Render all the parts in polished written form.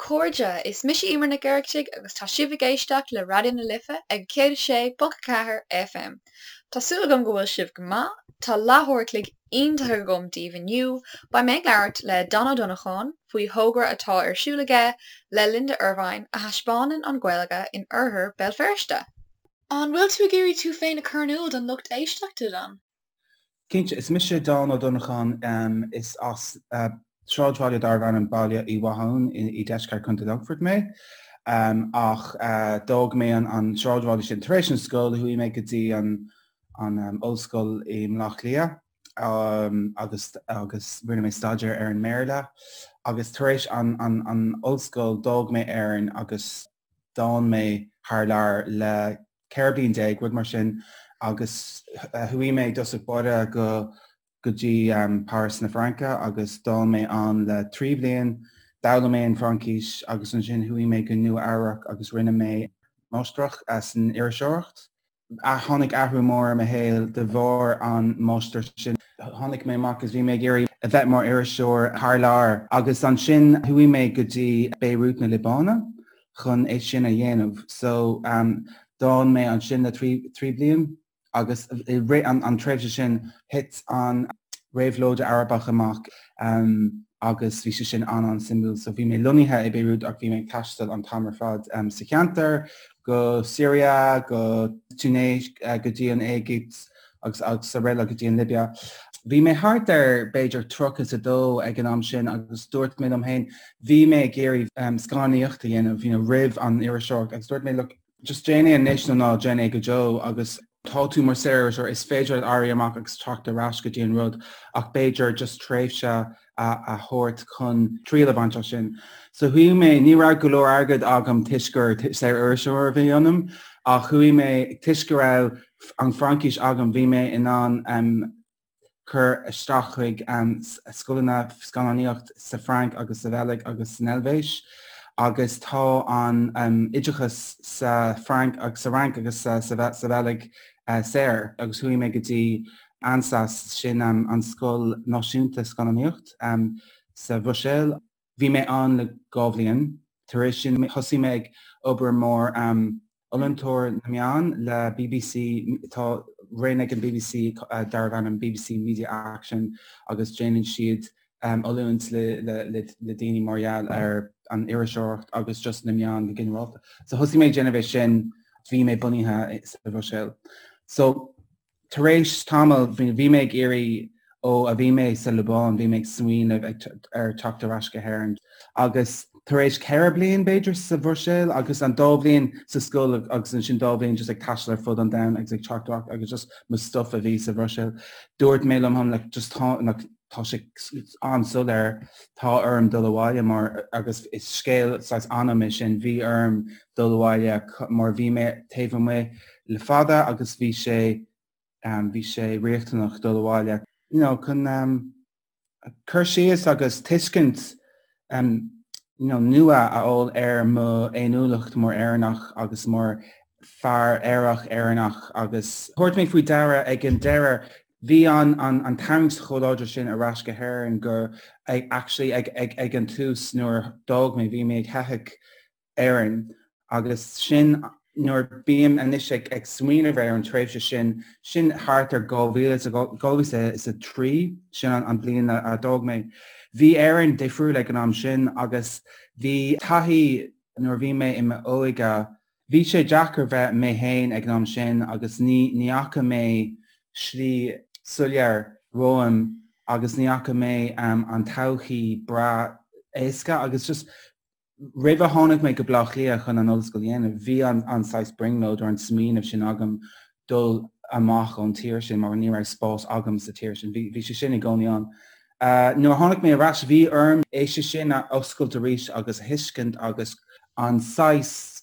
chairde, is mise Emer Nic Oireachtaigh agus tá sibh ag éisteacht le Raidió na Life ag 106.4 FM. Tá súil agam go bhfuil sibh go maith. Tá leathuair a chloig iontach agam daoibh inniu. Beidh mé ag labhairt le Dan Ó Donnacháin faoi thogra atá ar siúl aige le Linda Ervine a thaispeánann an Ghaeilge in oirthear Béal Feirste. An bhfuil tú ag iarraidh tú féin a chur in iúl don lucht éisteachta, Dan? Cinnte, is mise Dan Ó Donnacháin, is as sráidbhaile darbh ainm Baile Uí Mhatháin i deisceart Chontae Longfoirt mé. Ach d'fhág mé an sráidbhaile sin tar éis an scoil, chuaigh mé go dtí an ollscoil i mBleá Cliath agus agus rinne mé staidéar ar an mBéarla. Agus tar éis an ollscoil d'fhág mé Éirinn agus d'fhan mé thar lear le 14 bliain, rud mar sin, agus chuaigh mé i dtosach báire go go dtí Páras na Fraince agus d'fhan mé ann le 3 bhliain, d'fhoghlaim mé an Fraincis agus ansin chuaigh mé go Nua Eabhrac agus rinne mé máistreacht san iriseoireacht. Tháinig athrú mór ar mo shaol de bharr an máistreacht sin. Tháinig mé amach agus bhí mé ag iarraidh a bheith mar iriseoir thar lear agus ansin chuaigh mé go dtí Beirut na Liobáine chun é sin a dhéanamh. So d'fhan mé ansin le 3 bliain agus i rith an tréimhse sin thit an réabhlóid Arabach amach agus bhí sé sin an-an-suimiúil. So bhí mé lonnaithe i Beirut ach bhí mé ag taisteal an t-am ar fad sa cheantar, go Syria, go Tunis, go dtí an Éigipt agus agus araile go dtí an Libia. Bhí mé thart ar b'fhéidir 32 ag an am sin agus dúirt mé liom féin, bhí mé ag iarraidh scannánaíocht a dhéanamh you know, roimh an iriseoireacht agus dúirt mé look, just déan é anois nó ná déan é go deo agus tá tú mar saoririseoir, is féidir leat éirí amach agus teacht ar ais go dtí an rud ach b'fhéidir just tréimhse a thabhairt chun triail a bhaint as sin. So chuaigh mé, ní raibh go leor airgead agam toisc gur saoririseoir a bhí ionam ach chuaigh mé, toisc go raibh an Fraincis agam bhí mé in ann cur isteach chuig scoileanna scannánaíocht sa Frainc agus sa Bheilg agus san Eilvéis agus tá an oideachas sa Frainc agus sa Fhrainc agus sa Bheilg saor agus chuaigh mé go dtí ANSAS, sin an scoil náisiúnta scannánaíocht sa Bhruiséil. Bhí mé ann le 2 bhliain. Tar éis sin thosaigh mé ag obair mar oiliúntóir na meán le bbc. Tá roinn ag an bbc darbh ainm bbc Media Action agus déanann siad oiliúint le daoine mar gheall ar an iriseoireacht agus just na meáin go ginearálta. So thosaigh mé ag déanamh é sin, bhí mé bunaithe sa Bhruiséil. So Tar éis tamaill, bhí mé ag iarraidh, ó a bhí mé sa Liobáin, bhí mé ag smaoineamh ar teacht ar ais go hÉirinn. Agus tar éis 4 bliain, b'fhéidir, sa Bhruiséil agus an dá bhliain sa scoil agus ansin dá bhliain just ag taisteal ar fud an domhain agus ag teacht ar ais agus just mo stuff a bhí sa Bhruiséil, dúirt mé liom féin, like, just tá, like, tá sé an-soiléir, tá orm dul abhaile mar, agus is scéal saghas anam é sin, bhí orm dul abhaile mar bhí mé taobh amuigh le fada agus bhí sé, bhí sé riachtanach dul abhaile, you know, chun cur síos agus tuiscint you know, nua a fháil ar mo fhéiniúlacht mar Éireannach agus mar fear aerach Éireannach agus thabhairt mé faoi deara ag an deireadh bhí an an an tarraingt chomh láidir sin ar ais go hÉirinn gur actually ag ag ag an tús nuair a d'fhág mé bhí mé ag teitheadh Éirinn agus sin nuair bím anois ag ag smaoineamh ar an tréimhse sin, sin thart ar 2000 2003, sin an an bliain a d'fhág mé. Bhí Éirinn difriúil ag an am sin agus bhí taithí nuair a bhí mé i m'óige, bhí sé deacair bheith mé féin ag an am sin agus ní ní fhaca mé slí soiléir romham agus ní fhaca mé an todhchaí breá éasca agus just Roimh a tháinig mé go Bleá Cliath chun an ollscoil a dhéanamh, bhí an saghas brionglóid or an smaoineamh sin agam dul amach ón tír sin mar ní raibh spás agam sa tír sin. Bhí sé sin i gcónaí ann. Nuair a tháinig mé ar ais, bhí orm é sin a oscailt arís agus a thuiscint agus an saghas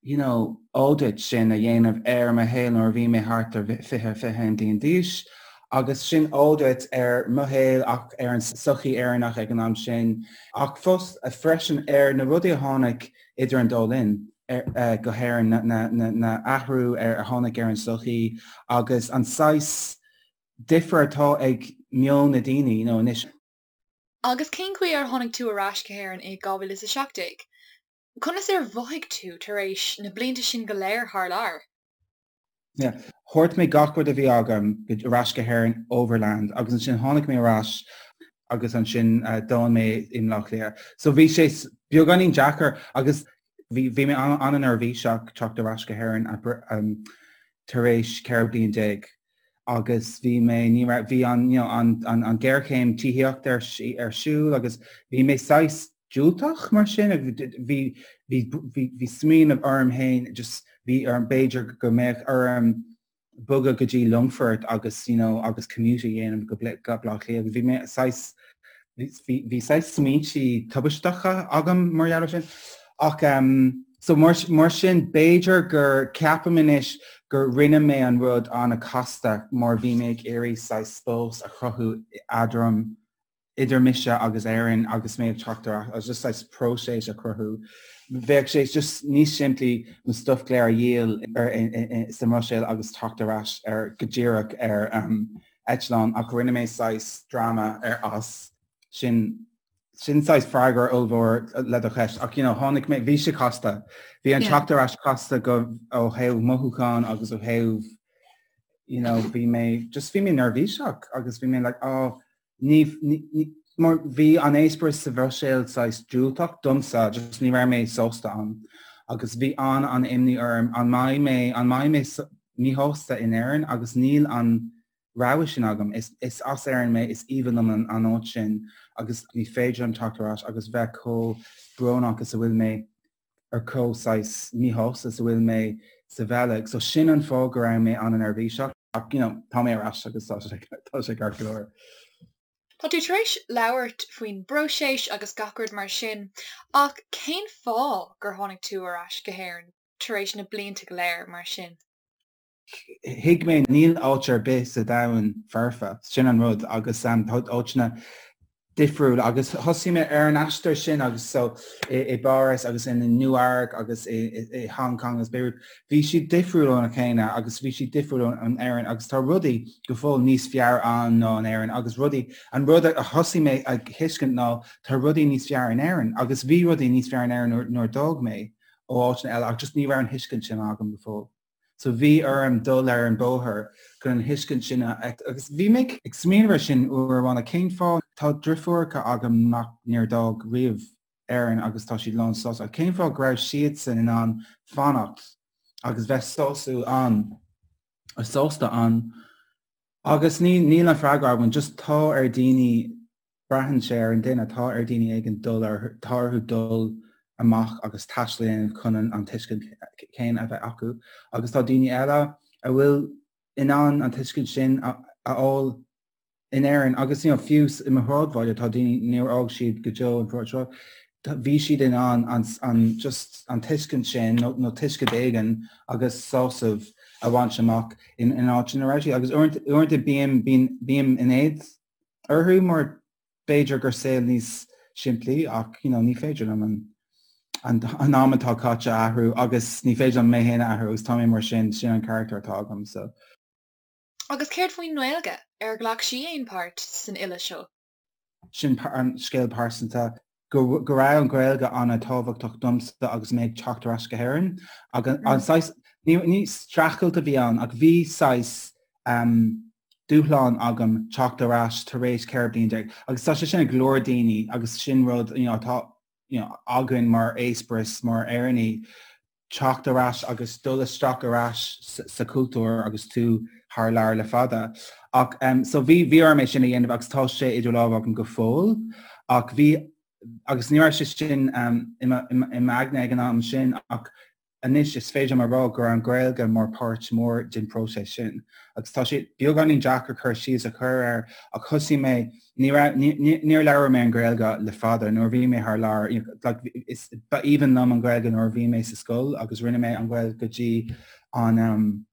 you know, audit sin a dhéanamh ar mo shaol nuair a bhí mé thart ar 20, 21 bliain d'aois agus sin audit ar mo shaol ach ar an sochaí Éireannach ag an am sin ach fós freisin ar na rudaí a tháinig idir an dá linn go hÉirinn, na athrú ar a tháinig ar an sochaí agus an saghas difear atá ag meon na daoine, you know, anois. Agus cén chaoi ar tháinig tú ar ais go hÉirinn i 2017? Conas ar mhothaigh tú tar éis na blianta sin go léir thar lear? Yeah. Thabhairt mé gach rud a bhí agam ar ais go hÉirinn overland agus ansin tháinig mé ar ais agus ansin d'fhan mé i mBleá Cliath. So bhí sé beagáinín deacair agus bhí bhí mé an-neirbhíseach teacht ar ais go hÉirinn tar éis 14 bliain agus bhí mé ní raibh bhí an you know an an an géarchéim tithíochta ar ar siúl agus bhí mé saghas diúltach mar sin bhí bhí bhí bhí smaoineamh orm féin just bhí orm b'fhéidir go mbeadh orm bogadh go dtí Longfort agus you know agus commute a dhéanamh go Bleá Cliath agus bhí mé saghas bhí bhí saghas smaointe tubaisteacha agam mar gheall air sin ach um, so mar, mar sin b'fhéidir gur ceapaim anois gur rinne mé an rud an-chasta mar bhí mé ag iarraidh saghas spás a chruthú eadrom idir mise agus Éirinn agus mé ag teacht ar ais, just saghas próiseas a chruthú. Bheadh sé just níos simplí mo stuff go léir a dhíol sa mBruiséil agus teacht ar ais ar go díreach ar eitleán ach rinne mé saghas dráma ar as sin sin saghas freagra ollmhór le do cheist ach you know tháinig mé bhí sé casta. Bhí an teacht ar ais casta go ó thaobh mothúchán agus ó thaobh you know bhí mé just bhí mé neirbhíseach agus bhí mé like oh Ní, ní, mar bhí an eispéireas sa Bhruiséil saghas diúltach domsa, just ní raibh mé sásta ann. Agus bhí an an imní orm, an mbeidh mé, an mbeidh mé míshásta in Éirinn agus níl an rogha sin agam. Is, is as Éirinn mé, is aoibhinn liom an, an áit sin agus ní féidir liom teacht ar ais agus bheith chomh brónach is a bhfuil mé ar chomh saghas míshásta is a bhfuil mé sa Bheilg. So sin an fáth go raibh mé an-neirbhíseach ach you know tá mé ar ais agus tá sé tá sé ceart go leor. Tá tú tar éis labhairt faoin bpróiseas agus gach rud mar sin ach cén fáth gur tháinig tú ar ais go hÉirinn tar éis na blianta go léir mar sin? Thuig mé níl áit ar bith sa domhan foirfe, sin an rud agus tá áiteanna difriúil agus thosaigh mé ar an aistear sin agus so i bPáras agus in Nua-Eabhrac agus i Hong Kong agus Beirut bhí siad difriúil óna chéile agus bhí siad difriúil ón Éirinn agus tá rudaí go fóill níos fearr ann ná in Éirinn agus rudaí an rud a thosaigh mé a thuiscint ná tá rudaí níos fearr in Éirinn agus bhí rudaí níos fearr in Éirinn nuair a d'fhág mé ó áiteanna eile ach just ní raibh an thuiscint sin agam go fóill. So bhí orm dul ar an bóthar chun an thuiscint sin a agus bhí mé ag smaoineamh ar sin uair amháin cén fáth tá driofúracha agam nach níor d'fhág riamh Éirinn agus tá siad lán sásta ach cén fáth go raibh siadsan in ann fanacht agus bheith sásúil ann sásta ann agus ní níl an freagra agam just tá ar daoine Braitheann sé ar an duine, tá ar daoine éigin dul ar, tá orthu dul amach agus taisteal a dhéanamh chun an tuiscint chéanna a bheith acu agus tá daoine eile a bhfuil in ann an tuiscint sin a fháil in Éirinn agus you know, fiú i mo shráidbhaile tá daoine níor fhág siad go deo an sráid bhí siad in ann an, an, just an tuiscint sin nó, nó tuiscint éigin agus sásamh a bhaint amach in, in áit ina raibh siad agus uaireanta bím, bím, bím in éad orthu mar b'fhéidir gur saol níos simplí ach you know, ní féidir liom an, an, an am atá caite a athrú agus ní féidir liom mé féin a athrú agus tá mé mar sin, sin an carachtar atá agam. So. Agus céard faoin nGaeilge? Ar ghlac sí aon páirt san fhilleadh seo? Sin an scéal pearsanta go, go raibh an Ghaeilge an-tábhachtach domsa agus mé ag teacht ar ais go hÉirinn agus an saghas, ní, ní streachailt a bhí ann ach bhí saghas um, dúshlán agam teacht ar ais tar éis 14 bliain agus tá sé sin ag go leor daoine agus sin rud you know, atá you know, againn mar eispéireas mar Éireannaigh teacht ar ais agus dul isteach ar ais sa chultúr agus tú thar lear le fada. Ach um, so bhí bhí orm é sin a dhéanamh agus tá sé idir lámha agam go fóill ach bhí agus ní raibh sé sin um, i m'aigne ag an am sin ach Anois is féidir liom a rá go raibh an Ghaeilge mar páirt mór den próiseas sin. Agus tá sé beagáinín deacair cur síos a chur air ach thosaigh mé, ní raibh, níor labhair mé an Ghaeilge le fada nuair a bhí mé thar lear, like is, ba aoibhinn liom an Ghaeilge nuair a bhí mé sa scoil agus rinne mé an Ghaeilge go dtí an, um,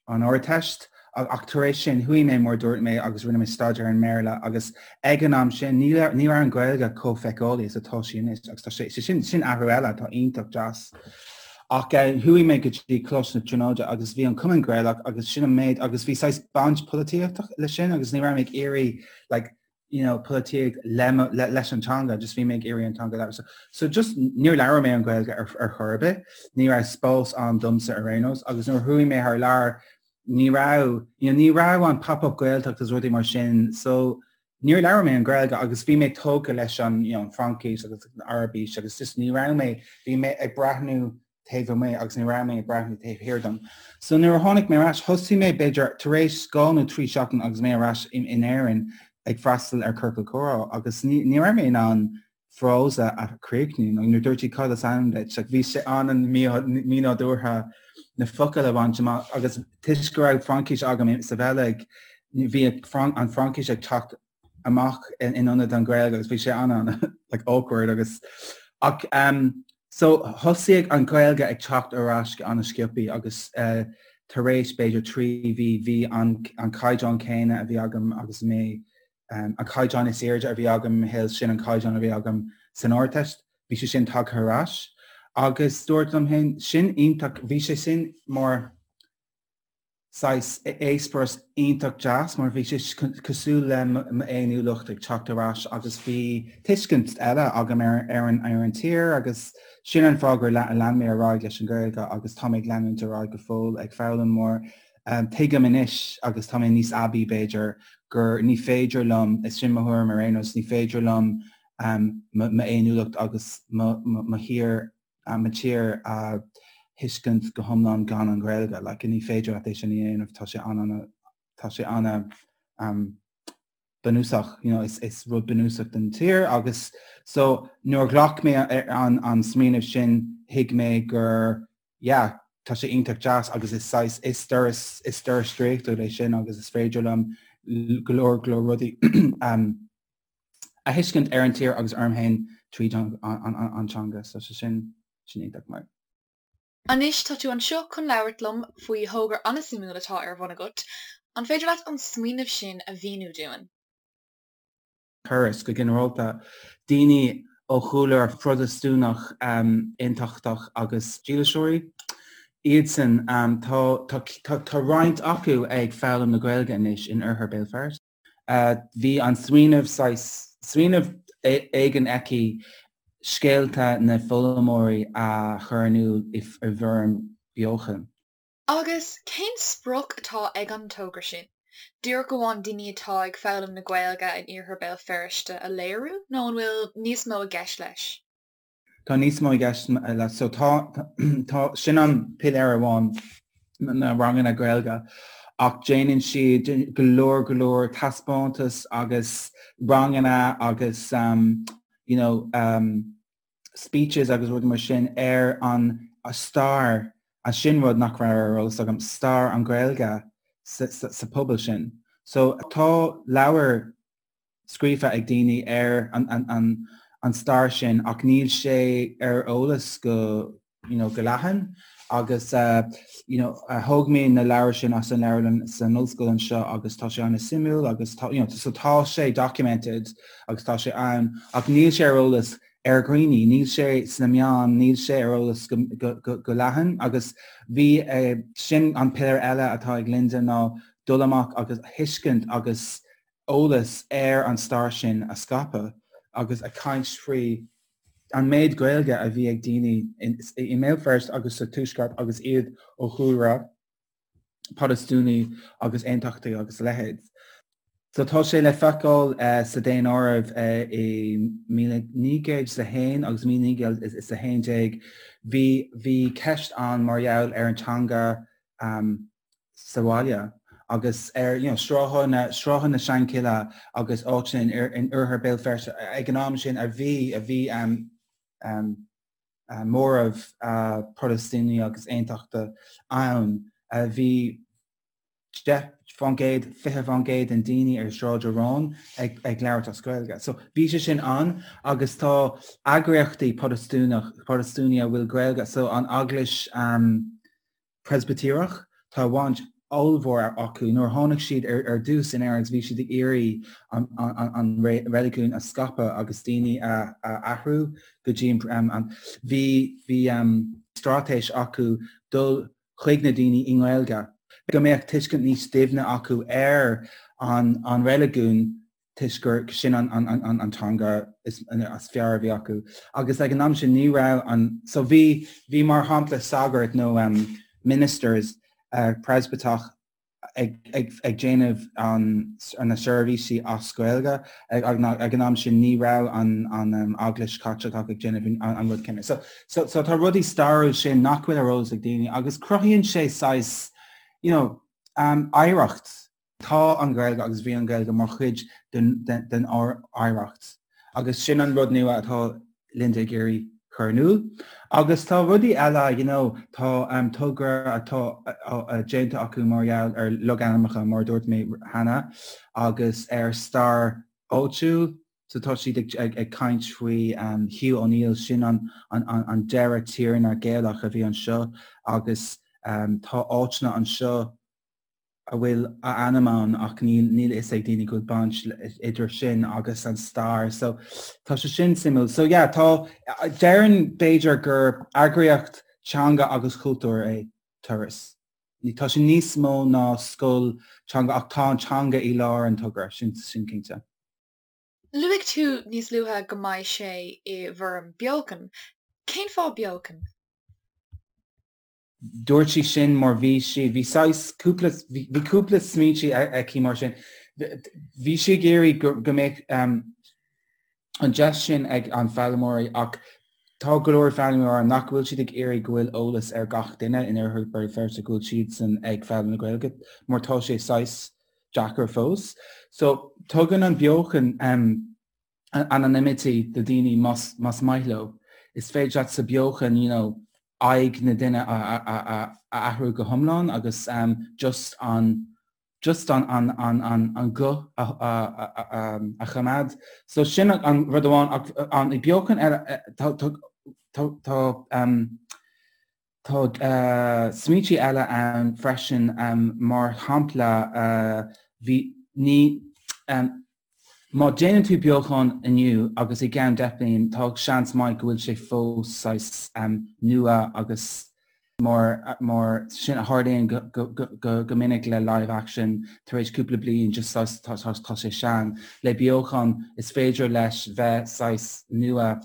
an Ardteist ach tar éis sin chuaigh mé mar dúirt mé agus rinne mé staidéar ar an mBéarla agus ag an am sin ní ní raibh an Ghaeilge chomh feiceálaí is atá sí anois agus tá sé sin sin athrú eile atá iontach deas. Ach eh, chuaigh mé go dtí Coláiste na Tríonóide agus bhí an Cumann Gaelach agus sin an méid agus bhí saghas baint polaitíochta leis sin agus ní raibh mé ag iarraidh like, you know, polaitíocht le, le, leis an teanga, just bhí mé ag iarraidh an teanga a labhairt. So, so just níor labhair mé an Ghaeilge ar, ar chor ar bith, ní raibh spás ann domsa ar aon nós, agus nuair a chuaigh mé thar lear, ní raibh, you know, ní raibh an pop-up Gaeltacht agus rudaí mar sin, so níor labhair mé an Ghaeilge agus bhí mé tógtha leis an, you know, an Fraincis agus an Araibis agus just ní raibh mé, bhí mé ag breathnú taobh amuigh agus ní raibh mé ag breathnú taobh thiar dom. So nuair a tháinig mé ar ais, thosaigh mé b'fhéidir tar éis 2 nó 3 seachtain agus mé ar ais in Éirinn ag freastal ar Ciorcal Comhrá agus ní ní raibh mé in ann frása a chríochnú nó nuair dúirt siad cad is ainm duit, like bhí sé an-mhínádúrtha na focail a bhaint amach agus toisc go raibh Fraincis agam sa Bheilg, bhí an Fraincis ag teacht amach in ionad an Ghaeilge agus bhí sé an like awkward agus ach um, so thosaigh an Ghaeilge ag teacht ar ais go an-sciobtha agus uh, tar éis b'fhéidir 3 mhí bhí an, an caighdeán céanna a bhí agam agus mé um, an caighdeán is airde a bhí agam i mo shaol sin an caighdeán a bhí agam san Ardteist, bhí sé sin tagtha ar ais agus dúirt liom féin sin iontach bhí sé sin mar saghas eispéireas iontach deas mar bhí sé cosúil le m'fhéiniúlacht ag teacht ar ais agus bhí tuiscint eile agam ar ar an ar an tír agus sin an fáth gur lean mé ar aghaidh leis an Ghaeilge agus tá mé ag leanúint ar aghaidh go fóill ag foghlaim mar tuigim anois agus tá mé níos aibí b'fhéidir gur ní féidir liom, is sin mo thuairim ar aon nós, ní féidir liom m'fhéiniúlacht agus mo thír mo tír a thuiscint go hiomlán gan an Ghaeilge. Like, ní féidir leat é sin a dhéanamh, tá sé an tá sé an um, bunúsach, you know, is, is rud bunúsach den tír agus so nuair a ghlac mé an, an smaoineamh sin thuig mé gur yeah, tá sé iontach deas agus is saghas is doras is doras draíochtúil é sin agus is féidir liom go leor go leor rudaí um, a thuiscint ar an tír agus orm féin tríd an teanga, so sé sin sin iontach maith. Anois tá tú anseo chun labhairt liom faoi thogra an-suimiúil atá ar bhun agat. An féidir leat an smaoineamh sin a mhíniú dúinn? Turas, go ginearálta, daoine ó chúlra Phrotastúnach aontachtach agus dílseoirí iadsan. Tá tá tá roinnt acu ag foghlaim na Gaeilge anois in oirthear Béal Feirste. Bhí an smaoineamh saghas smaoineamh éigin aici scéalta na bhfoghlaimeoirí a chur in iúl i bhfoirm beochan. Agus cén sprioc atá ag an togra sin? Díreach amháin daoine atá ag foghlaim na Gaeilge in iarthar Béal Feirste a léiriú nó an bhfuil níos mó i gceist leis? Tá níos mó i gceist leis. So tá, tá, sin an piléar amháin, na ranganna Gaeilge, ach déanann siad go leor, go leor taispeántas agus ranganna agus um, you know, um, speeches agus rudaí mar sin ar an stair, a sin rud nach raibh ar eolas agam, stair an Ghaeilge sa, sa, sa pobal sin. So tá leabhar scríofa ag daoine ar an stair sin ach níl sé ar eolas go you know go leathan agus you know thóg mé na leabhair sin as an leabharlann san ollscoil anseo agus tá sé an-suimiúil agus tá you know so tá sé documented agus tá sé ann ach níl sé ar eolas ar dhaoine, níl sé sna meáin, níl sé ar eolas go, go, go, go leathan agus bhí sin an piléar eile atá ag Linda ná dul amach agus thuiscint agus eolas ar an stair sin a scaipeadh agus a caint faoi an méid Gaeilge a bhí ag daoine i mBéal Feirste agus sa Tuaisceart agus iad ó chúlra Protastúnaí agus Aontachtaí agus a leithéid. So tá sé le feiceáil sa daonáireamh i 1901 agus 1911 bhí bhí ceist ann mar gheall ar an teanga sa bhaile agus ar you know sráitheanna na sráitheanna na Seanchille agus áiteanna in in oirthear Béal Feirste ag an am sin a bhí a bhí um, um, uh, móramh uh, Protastúnaí agus Aontachta ann a bhí 10 fán gcéad, 20 fán gcéad den daoine ar Sráid Aráin ag, ag labhairt as Gaeilge. So bhí sé sin ann agus tá eagraíochtaí Protastúnach, Protastúnaí a bhfuil Gaeilge, so an Eaglais um, Preispitéireach, tá baint ollmhór acu. Nuair a tháinig siad ar dtús in Éirinn bhí siad ag iarraidh an reiligiún a scaipeadh agus daoine a athrú go dtí an bhí bhí straitéis acu dul chuig na daoine i nGaeilge go mbeadh tuiscint níos doimhne acu ar an reiligiún. toisc gur sin an teanga is fearr a bhí acu. Agus ag an am sin ní raibh an, so bhí, bhí mar shampla sagart nó ministers Preispitéireach ag déanamh na seirbhísí as Gaeilge ag an am sin ní raibh an Eaglais Chaitliceach ag déanamh an rud céanna. So, so tá rudaí stairiúil sin nach bhfuil ar eolas ag daoine agus cruthaíonn sé saghas, you know, oidhreacht. Tá an Ghaeilge agus bhí an Ghaeilge mar chuid den oidhreacht agus sin an rud nua atá Linda ag iarraidh chur in iúl. Agus tá rudaí eile, you know, tá togra atá déanta acu mar gheall ar logainmneacha, mar a dúirt mé cheana, agus ar stair áitiúil. So tá siad ag caint faoi Hugh O'Neill, sin an deireadh tiarna Gaelach a bhí anseo agus tá áiteanna anseo a bhfuil a ainm ann ach níl níl a fhios ag daoine go bhfuil baint idir sin agus an stair so tá sé sin suimiúil. So yeah tá déarfainn b'fhéidir gur eagraíocht teanga agus chultúir é Turas. Tá sé níos mó ná scoil teanga ach tá an teanga i lár an togra, sin sin cinnte. Luaigh tú níos luaithe go mbeidh sé i bhfoirm beochan. Cén fáth beochan? Dúirt sí sin mar bhí sí, bhí saghas cúpla, bhí cúpla smaointe aici mar sin. Bhí sí ag iarraidh go, go mbeadh an deis sin ag an foghlaimeoirí ach tá go leor foghlaimeoirí ann nach bhfuil siad ag iarraidh go bhfuil eolas ar gach duine in Oirthear Bhéal Feirste go bhfuil siadsan ag foghlaim na Gaeilge mar tá sé saghas deacair fós. So tugann an beochan anonymity do daoine más maith leo. Is féidir leat sa beochan you know aghaidh na duine a athrú go hiomlán agus just an just an an an an an guth a a choimeád. So sin an rud amháin ach an beochan eile tá tá tá Tá smaointe eile ann freisin, mar shampla, bhí, ní, má déanann tú beochan inniu agus i gceann 10 bliain, tá seans maith go bhfuil sé fós saghas nua agus mar, mar sin a tharlaíonn go minic le live action, tar éis cúpla bliain just saghas tá sé sean. Le beochan is féidir leis bheith saghas nua.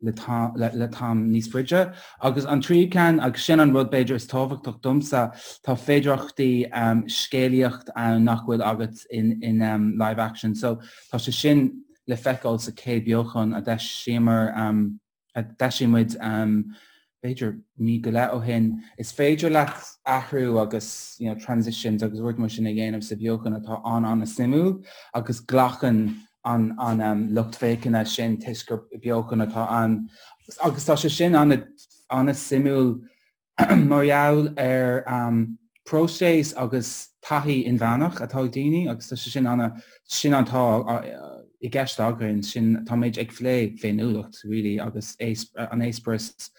le t-am níos faide. Agus an tríú ceann, agus sin an rud b'fhéidir is tábhachtach domsa, tá féidearthachtaí scéalaíocht ann nach bhfuil agat in live action. So tá sé sin le feiceáil sa chéad beochan a d'eisíomar, a d'eisigh muid b'fhéidir mí go leith ó shin. Is féidir leat athrú agus you know transitions agus rudaí mar sin a dhéanamh sa bheochan atá an-an-suimiúil agus glacann an an lucht féachana sin toisc gur beochan atá ann agus tá sé sin an-suimiúil mar gheall ar próiseas agus taithí inmheánach atá ag daoine agus tá sé sin ana sin atá i gceist againn sin táimid ag plé féiniúlacht really agus an eispéireas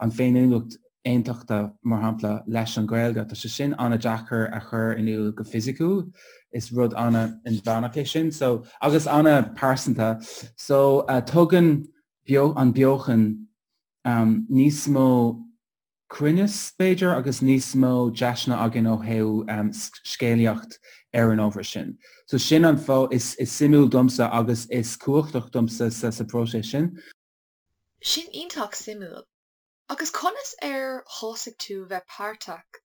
an féiniúlacht aontachta, mar shampla, leis an Ghaeilge. Tá sé sin an-deacair a chur in iúl go fisiciúil. Is rud an-inmheánach é sin so agus an-pearsanta. So tugann an beochan níos mó cruinneas, b'fhéidir, agus níos mó deiseanna againn ó thaobh scéalaíocht ar an ábhar sin. So sin an fáth is suimiúil domsa agus is cumhachtach domsa sa próiseas sin. Sin iontach suimiúil. Agus conas ar thosaigh tú bheith páirteach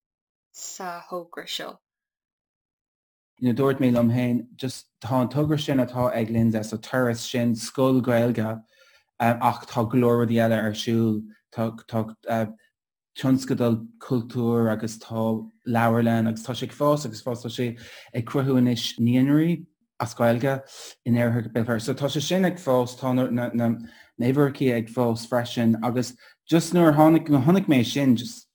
sa thogra seo? You know, dúirt mé liom féin, just tá an togra sin atá ag Linda, so Turas sin scoil Ghaeilge ach tá go leor rudaí eile ar siúl, tá tá tionscadal cultúir agus tá leabharlann agus tá sé ag fás agus fás, tá sé ag cruthú anois naíonraí. as Gaeilge in Oirthear Bhéal Feirste. So tá sé sin ag fás, tá na na huimhreacha ag fás freisin agus just nuair a tháinig, nuair a chonaic mé sin just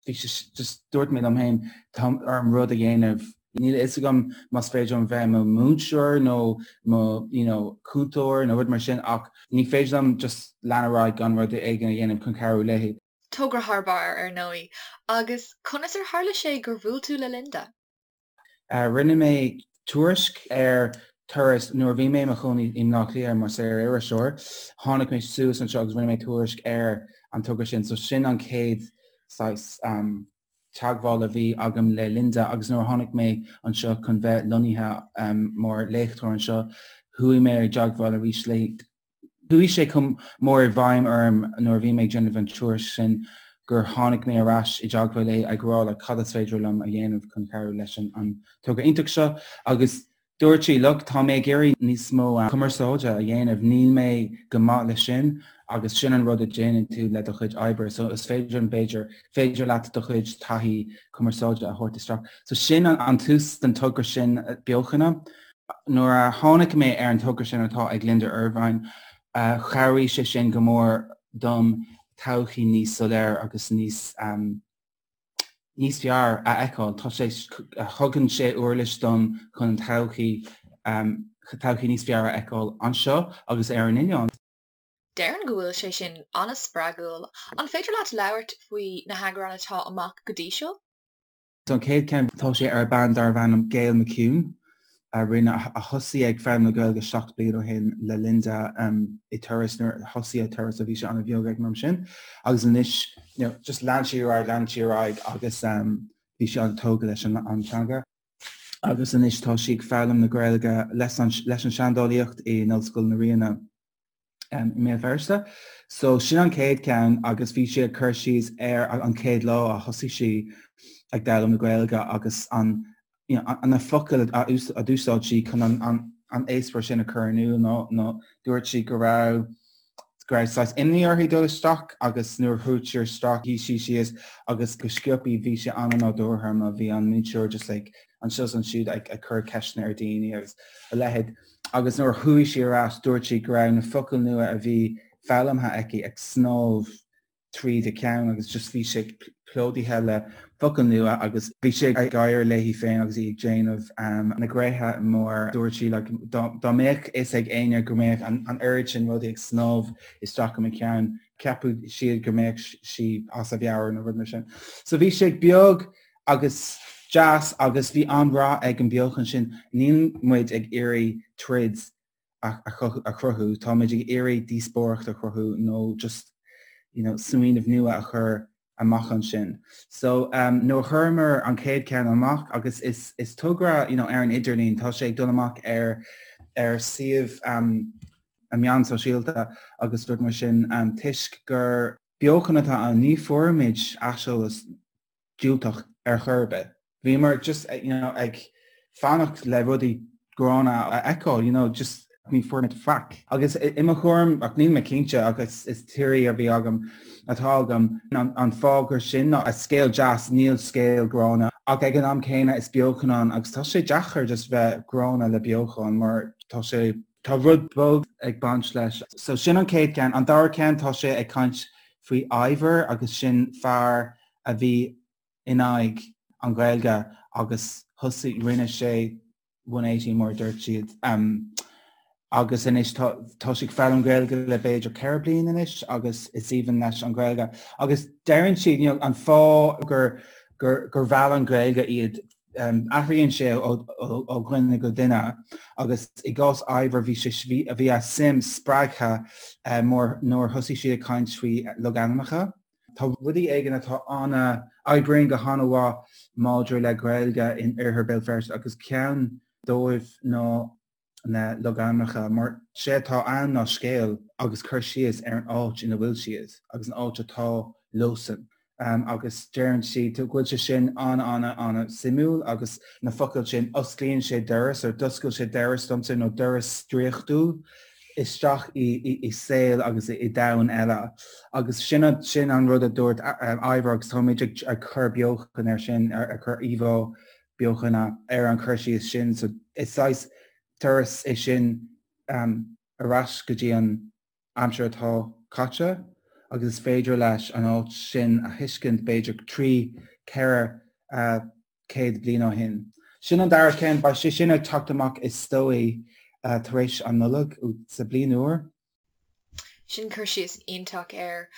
bhí sé just dúirt mé liom féin tá orm rud a dhéanamh. Níl a fhios agam más féidir liom bheith i mo mhúinteoir nó mo you know cúntóir nó rud mar sin ach ní féidir liom just lean ar aghaidh gan rud éigin a dhéanamh chun cabhrú léi. Togra thar barr, ar ndóigh. Agus conas ar tharla sé gur bhuail tú le Linda? Rinne mé tuairisc ar Turas nuair a bhí mé i mo chónaí i mBleá Cliath mar saor-iriseoir. Tháinig mé suas anseo agus rinne mé tuairisc ar an togra sin. So sin an chéad saghas. teagmháil a bhí agam le Linda agus nuair a tháinig mé anseo chun bheith lonnaithe mar léachtóir anseo, chuaigh mé i dteagmháil arís léi. Chuaigh sé chomh mór i bhfeidhm orm nuair a bhí mé ag déanamh an tuairisc sin gur tháinig mé ar ais i dteagmháil léi ag rá like cad is féidir liom a dhéanamh chun cabhrú leis an togra iontach seo agus Dúirt sí, Look, tá mé ag iarraidh níos mó cumarsáide a dhéanamh, níl mé go maith leis sin agus sin an rud a déanann tú le do chuid oibre, so is féidir liom, b'fhéidir, féidir leat do chuid taithí cumarsáide a thabhairt isteach. So sin an tús den togra sin beochana. Nuair a tháinig mé ar an togra sin atá ag Linda Ervine, chabhraigh sé sin go mór dom todhchaí níos soiléir agus níos níos fearr a fheiceáil. Tá sé, thugann sé uirlis dom chun an todhchaí, todhchaí níos fearr a fheiceáil anseo agus ar an oileán. Déarfainn go bhfuil sé sin an-spreagúil. An féidir leat labhairt faoi na heagráin atá amach go dtí seo? An chéad ceann, tá sé ar bean darbh ainm Gail McKeown. a rinne, a thosaigh ag foghlaim na Gaeilge 7 bliain ó shin le Linda i Turas nuair a thosaigh Turas a bhí sé an-bheag ag an am sin agus anois you know, just lean sí ar aghaidh, lean sí ar aghaidh agus bhí sí an-tógtha leis an an teanga. Agus anois tá sí ag foghlaim na Gaeilge leis an leis an seandálaíocht in Ollscoil na Ríona. i mBéal Feirste. So sin an chéad ceann agus bhí sé ag cur síos ar an chéad lá a thosaigh sí ag foghlaim na Gaeilge agus an you know, na focail a d'úsáid sí chun an, an, an eispéireas sin a chur in iúl nó, nó dúirt sí go raibh go raibh saghas imní uirthi dul isteach agus nuair a chuaigh sí isteach shuigh sí síos agus go sciobtha bhí sé an-nádúrtha mar bhí an múinteoir just like anseo is ansiúd ag, ag cur ceisteanna ar daoine agus a leithéid. Agus nuair a chuaigh sí ar ais dúirt sí go raibh na focail nua a bhí foghlamtha aici ag snámh tríd a ceann agus just bhí sé plódaithe le focail nua agus bhí sé ag gáire léi féin agus í ag déanamh na gréithe mar dúirt sí like dá mbeadh fhios ag éinne go mbeadh an oiread sin rudaí ag snámh isteach i mo cheann cheapfadh siad go mbeadh sí as a meabhair nó rud mar sin. So bhí sé beag agus deas agus bhí an-rath ag an beochan sin. Níl muid ag iarraidh troid a chruthú, tá muid ag iarraidh díospóireacht a chruthú nó just you know smaoineamh nua a chur amach ansin. So um, nuair a chuireamar an chéad ceann amach agus is, is togra you know, ar an idirlíon, tá sé ag dul amach ar ar suíomh um, a meán sóisialta agus rud mar sin um, toisc gur beochan atá ann ní fuairimid aiseolas diúltach ar chor ar bith. Bhíomar just you know ag fanacht le rudaí gránna a fheiceáil, you know, just ní fuair muid faic. Agus i mo thuairim, ach níl mé cinnte ach is is theory a bhí agam atá agam, an fáth gur sin ná scéal deas, níl scéal gránna. Ach ag an am céanna is beochan ann agus tá sé deacair just bheith gránna le beochan mar tá sé tá rud beag ag baint leis. So sin an chéad ceann. An dara ceann tá sé ag caint faoi Ivor agus sin fear a bhí in aghaidh an Ghaeilge agus thosaigh, rinne sé 180 mar a dúirt siad. Agus anois tá tá sé ag foghlaim Gaeilge le b'fhéidir 4 bliain anois agus is aoibhinn leis an Ghaeilge. Agus deireann siad you know, an fáth gur gur gur mheall an Ghaeilge iad um, athraíonn sé ó, ó, ó dhuine go duine agus i gcás Ivor bhí sé bhí, bhí a suim spreagtha uh, mór nuair thosaigh siad ag caint faoi logainmneacha. Tá rudaí éigin atá ana, oibríonn go han-mhaith maidir le Gaeilge in Oirthear Béal Feirste agus ceann dóibh ná na logainmneacha mar sé atá ann ná scéal agus cur síos ar an áit ina bhfuil siad agus an áit atá leosan. Agus deireann siad go bhfuil sé sin an-an-an-suimiúil agus na focail sin osclaíonn sé doras or d'oscail sé doras domsa nó doras draíochtúil isteach i saol agus i domhan eile. Agus sin sin an rud a dúirt Ivor agus táimid ag cur beochan ar sin, ag cur íomhá beochana ar an chur síos sin. So is saghas turas é sin ar ais go dtí an aimsir atá caite agus is féidir leis an áit sin a thuiscint b'fhéidir 3, 4, 100 bliain ó shin. Sin an dara ceann, beidh sé sin ag teacht amach is dóigh tar éis an Nollaig sa bliain úr. Sin cur síos iontach air.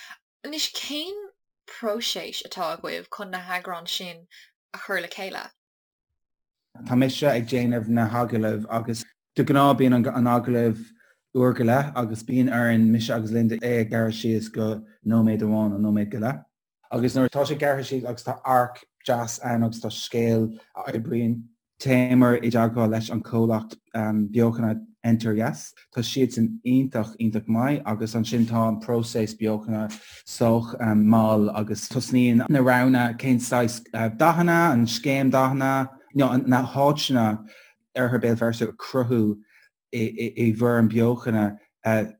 Anois cén próiseas atá agaibh chun na heagráin sin a chur le chéile? Tá mise ag déanamh na hagallaimh agus de ghnáth bíonn an agallamh uair go leith agus bíonn orainn, mise agus Linda, é a ghearradh síos go nóiméad amháin nó nóiméad go leith. Agus nuair atá sé gearrtha síos agus tá arc deas ann agus tá scéal a oibríonn. Théamar i dteagmháil leis an chomhlacht beochana Enter Yes. Tá siadsan iontach, iontach maith agus ansin tá an próiseas beochana sách mall agus tosnaíonn na roghanna cén saghas dathanna, an scéim dathanna, na háiteanna Oirthear Béal Feirste a cruthú i bhfoirm beochana.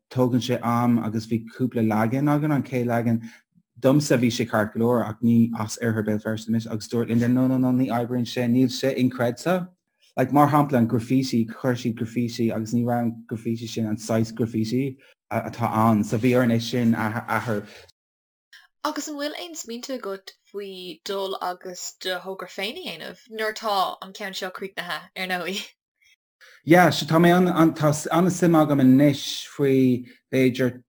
Tógann sé am agus bhí cúpla leagan againn, an chéad leagan domsa bhí sé ceart go leor ach ní as Oirthear Béal Feirste mise agus dúirt Linda no no no ní oibríonn sé, níl sé inchreidte. Like mar shampla an graffiti, chuir siad graffiti agus ní raibh an graffiti sin an saghas graffiti atá ann so bhí orainn é sin a athrú. Agus an bhfuil aon smaointe agat faoi dul agus do thogra féin a dhéanamh, nuair atá an ceann seo críochnaithe, ar ndóigh? Yeah, so tá mé an, tá an-suim agam anois faoi b'fhéidir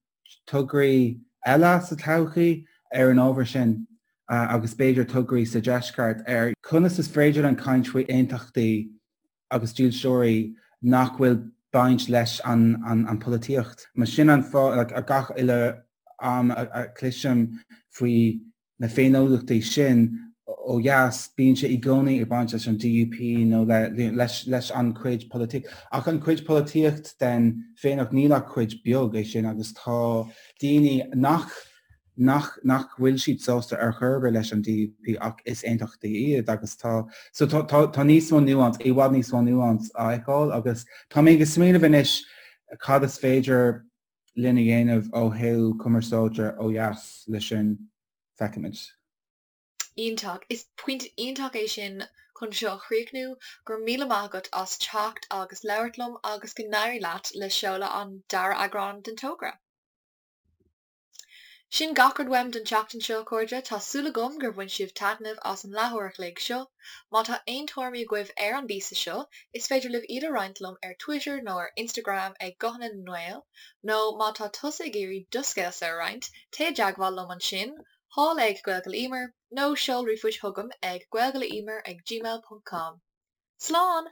tograí eile sa todhchaí ar an ábhar sin agus b'fhéidir tograí sa deisceart ar conas is féidir linn caint faoi aontachtaí agus dílseoirí nach bhfuil baint leis an an polaitíocht. Mar sin an fáth like, gach uile am a chloisim faoi na féiniúlachtaí sin ó dheas, bíonn sé i gcónaí ag baint leis an DUP nó leis an chuid polaitíocht. Ach an chuid polaitíocht den féiniúlacht, níl ach cuid beag é sin agus tá daoine nach nach nach bhfuil siad sásta ar chor ar bith leis an DUP ach is aontachtaí iad agus tá so tá tá tá níos mó nuance, i bhfad níos mó nuance á fheiceáil agus tá mé ag smaoineamh anois cad is féidir linn a dhéanamh ó thaobh cumarsáide ó dheas leis sin, feicfimid. Iontach. Is pointe iontach é sin chun seo a chríochnú. Go raibh míle maith agat as teacht agus labhairt liom agus go n-éirí leat le seoladh an dara eagrán den togra. Sin gach rud uaim don tseachtain seo, a chairde. Tá súil agam gur bhain sibh taitneamh as an leathuair a chloig seo. Má tá aon tuairimí agaibh ar an bpíosa seo, is féidir libh iad a roinnt liom ar Twitter nó ar Instagram ag Guthanna na nGael, nó má tá tusa ag iarraidh do scéalsa a roinnt, téigh i dteagmháil liom ansin, thall ag Gaeilge le Emer, nó seol ríomhphost chugam ag gaeilgeleemer ag gmail ponc com. Slán!